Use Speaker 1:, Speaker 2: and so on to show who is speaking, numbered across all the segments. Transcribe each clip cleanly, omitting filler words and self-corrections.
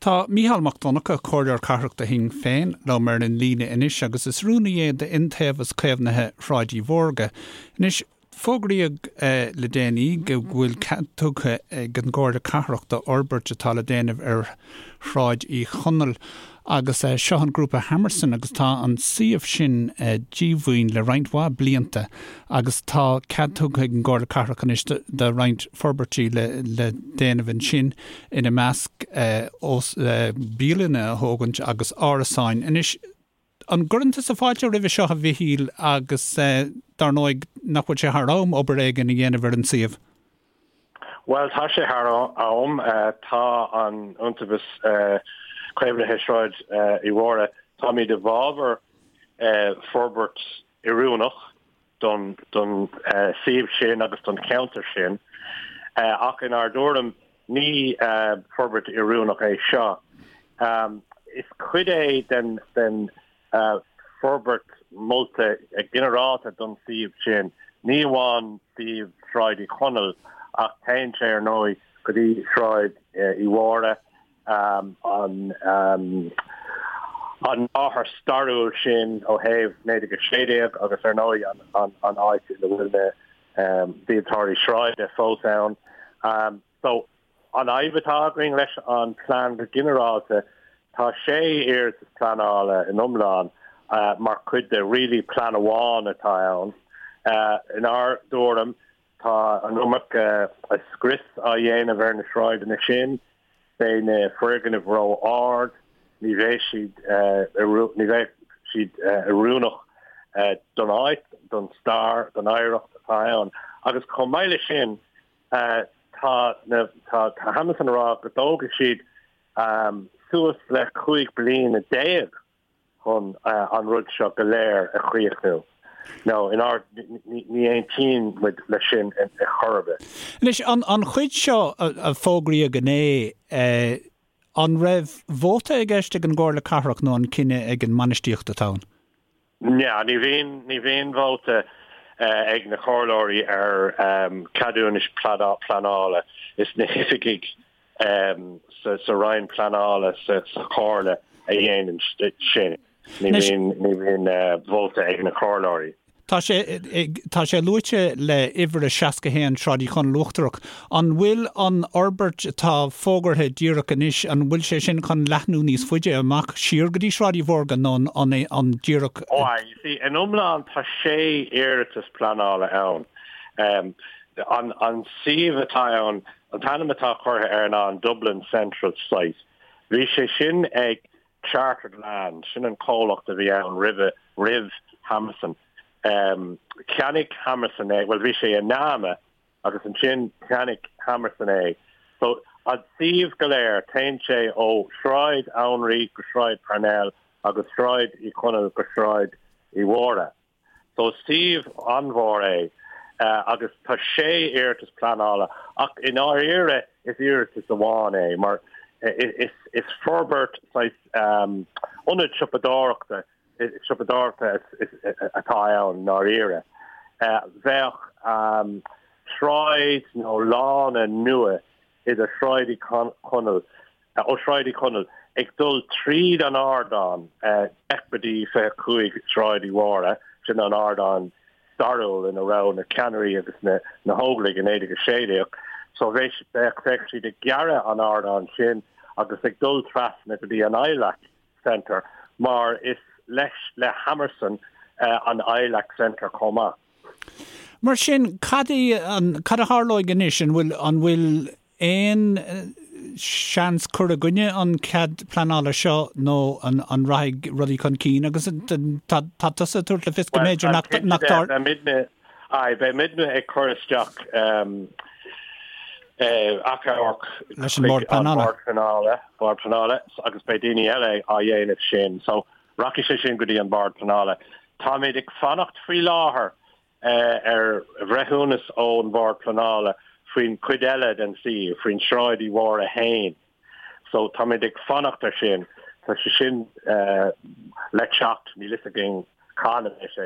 Speaker 1: Tá Mícheál Mac Donncha, Comhairleoir Cathrach do Shinn Féin, liom ar an líne anois agus is rúnaí é d'Iontaobhas Caomhnaithe Shráid Uí Mhórdha. Anois, fógraíodh le déanaí go bhfuil cead tugtha ag an gComhairle Cathrach d'fhorbairt atá le déanamh ar Shráid Uí Chonaill agus seo an grúpa Hammerson agus tá an suíomh sin díomhaoin le roinnt mhaith blianta agus tá cead tugtha ag an gComhairle Cathrach anois do roinnt forbairtí le déanamh ansin, ina measc bialanna a thógaint agus árasáin. Anois, an gcuireann tusa fáilte roimhe seo a Mhichíl agus dar ndóigh nach bhfuil sé thar am obair éigin a dhéanamh ar an suíomh?
Speaker 2: Bhuel, tá sé thar am. Tá an Iontaobhas Caomhnaithe Sráid Uí Mhórdha, táimid i bhfabhar forbairt oiriúnach don suíomh sin agus don cheantar sin, ach inár dtuairim ní forbairt oiriúnach é seo. Is cuid é den forbairt molta ginearálta don suíomh sin, ní amháin suíomh Shráid Uí Chonaill ach téann sé ar ndóigh go dtí Sráid Uí Mhórdha, an an láthair stairiúil sin ó thaobh 1916 agus ar ndóigh an áit ina bhfuil na díoltóirí sráide fós ann. So, An fhadhb atá againn leis an plean go ginearálta, tá sé iarratas pleanála in iomlán mar chuid de really plean amháin atá ann. Inár dtuairim, tá an iomarca scrios á dhéanamh ar na sráideanna sin, beidh na foirgnimh ró-ard, ní bheidh siad ní bheidh siad oiriúnach don áit, don stair, don oidhreacht atá ann. Agus chomh maith leis sin, Tá na, tá Hammerson ag rá go dtógfaidh siad suas le 15 bliana chun an rud seo go léir a chríochnú. Nó inár, ní aontaíonn muid leis sin ar chor ar bith.
Speaker 1: Anois, an chuid seo a fógraíodh inné, an raibh vóta i gceist ag an gComhairle Cathrach nó an cinneadh ag an mbainistíocht atá ann?
Speaker 2: Ní, ní bhíonn, ní bhíonn vóta ag na comhairleoirí ar ceadúnais pleanála. Is na hoifigigh sa Roinn Pleanála sa Chomhairle a dhéanann sin. Ní bhíonn, ní bhíonn vóta ag na comhairleoirí.
Speaker 1: Tá sé, tá sé luaite le uimhir a 61 Sráid Uí Chonaill Uachtarach. An bhfuil an fhorbairt atá fógartha díreach anois, an bhfuil sé sin chun leathnú níos faide amach siar go dtí Sráid Uí Mhórdha nó an é an díreach.
Speaker 2: Ó aye, you see, in iomlán tá sé iarratas pleanála ann. An, an suíomh atá ann, an t-ainm atá curtha air ná an Dublin Central Site. Bhí sé sin ag Chartered Land, sin an comhlacht a bhí ann roimhe, roimh Hammerson. Cheannaigh Hammerson é, bhuel bhí sé i NAMA agus ansin cheannaigh Hammerson é. So an suíomh go léir, téann sé ó Shráid Anraí go Sráid Parnell agus Sráid Uí Chonaill go Sráid Uí Mhórdha. So is suíomh an-mhór é agus tá sé iarratas pleanála ach i ndáiríre is iarratas amháin é mar is forbairt saghas ionad siopadóireachta siopadóireachta atá ann i ndáiríre. Bheadh sráid nó lána nua idir Sráid Uí Chonaill ó Shráid Uí Chonaill ag dul tríd an ardán 10 go dtí 25 Sráid Uí Mhórdha, sin an ardán stairiúil ina raibh na ceannairí agus na na hÓglaigh i 1916. So bheadh bheadh siad ag gearradh an ardán sin agus ag dul trasna go dtí an ILAC Centre mar is leis le Hammerson an ILAC Centre chomh maith.
Speaker 1: Mar sin, cad é an, cad a tharlóidh anois? An bhfuil, an bhfuil aon seans cur i gcoinne an cead pleanála seo nó an, an rachaidh rudaí chun cinn? Agus tá, tá tusa ag tabhairt le fios go mb'fhéidir nach, nach dtar.
Speaker 2: Beidh aye, beidh muidne ag cur isteach achomharc
Speaker 1: Leis an mBord Pleanála.
Speaker 2: Bord Pleanála, Bord Pleanála agus beidh daoine eile á dhéanamh sin. So Rachaidh sé sin go dtí an Bord Pleanála. Táimid ag fanacht faoi láthair ar bhreithiúnas ón Bhord Pleanála faoin chuid eile den suíomh, faoin Sráid Uí Mhórdha féin. So táimid ag fanacht ar sin. Tá sé sin le teacht, níl fhios againn cathain a bheidh sé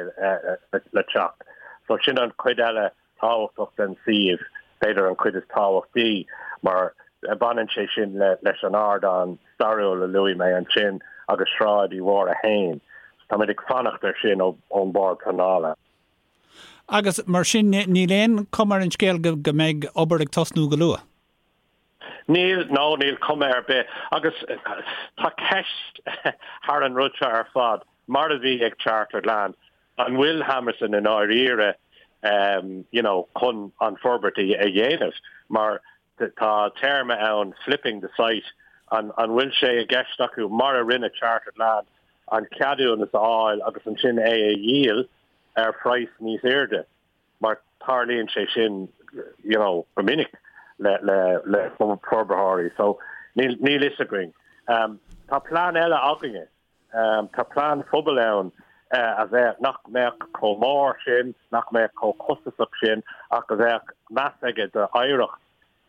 Speaker 2: le teacht. So sin an chuid eile tábhachtach den suíomh, b'fhéidir an chuid is tábhachtaí mar. Baineann sé sin leis an ardán stairiúil a luaigh mé ansin agus Sráid Uí Mhórdha féin. Táimid ag fanacht air sin ón Bord Pleanála.
Speaker 1: Agus mar sin níl aon chuma ar an scéal go mbeidh obair ag tosnú go luath?
Speaker 2: Níl, no, níl cuma ar bith. Agus tá ceist thar an rud seo ar fad, mar a bhí ag Chartered Land, an bhfuil Hammerson i ndáiríre you know, chun an forbairt a dhéanamh? Mar tá téarma ann, flipping the site, an bhfuil sé i gceist acu, mar a rinne Chartered Land, an ceadúnas a fháil agus ansin é a dhíol ar phraghas níos airde? Mar tarlaíonn sé sin you know, go minic le, le, le forbarthóirí. So níl, níl fhios againn. Um, tá plean eile againne. Um, tá plean phobail ann uh, a bheadh nach mbeadh chomh mór sin, nach mbeadh chomh costasach sin, ach a bheadh meas aige d'oidhreacht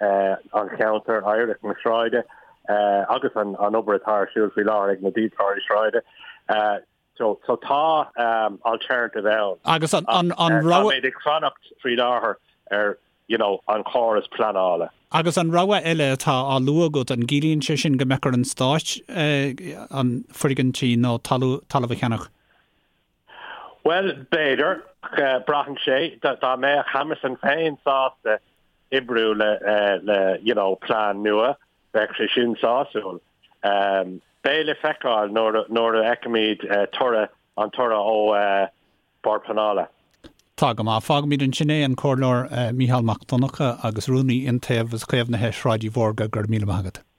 Speaker 2: uh, an cheantair, oidhreacht na sráide, uh, agus an, an obair atá ar siúl faoi láthair ag na díoltóirí sráide. Uh, So so tá alternative ann.
Speaker 1: Agus an an an rogha.
Speaker 2: Táimid ag fanacht faoi láthair ar you know an córas pleanála.
Speaker 1: Agus an rogha eile atá á lua agat, an gciallaíonn sé sin go mbeadh ar an Stáit an foirgintí nó talamh a cheannach?
Speaker 2: Bhuel, b'fhéidir. Braitheann sé. Dá mbeadh Hammerson féin sásta oibriú le le you know plean nua, Bheadh sé sin sásúil. Beidh le feiceáil nuair a fheicfimid toradh, an toradh ó Bord Pleanála.
Speaker 1: Tá go maith. Fágfaimid ansin é, an Comhairleoir Mícheál Mac Donncha agus Rúnaí Iontaobhas Caomhnaithe Shráid Uí Mhórdha, go raibh míle maith agat.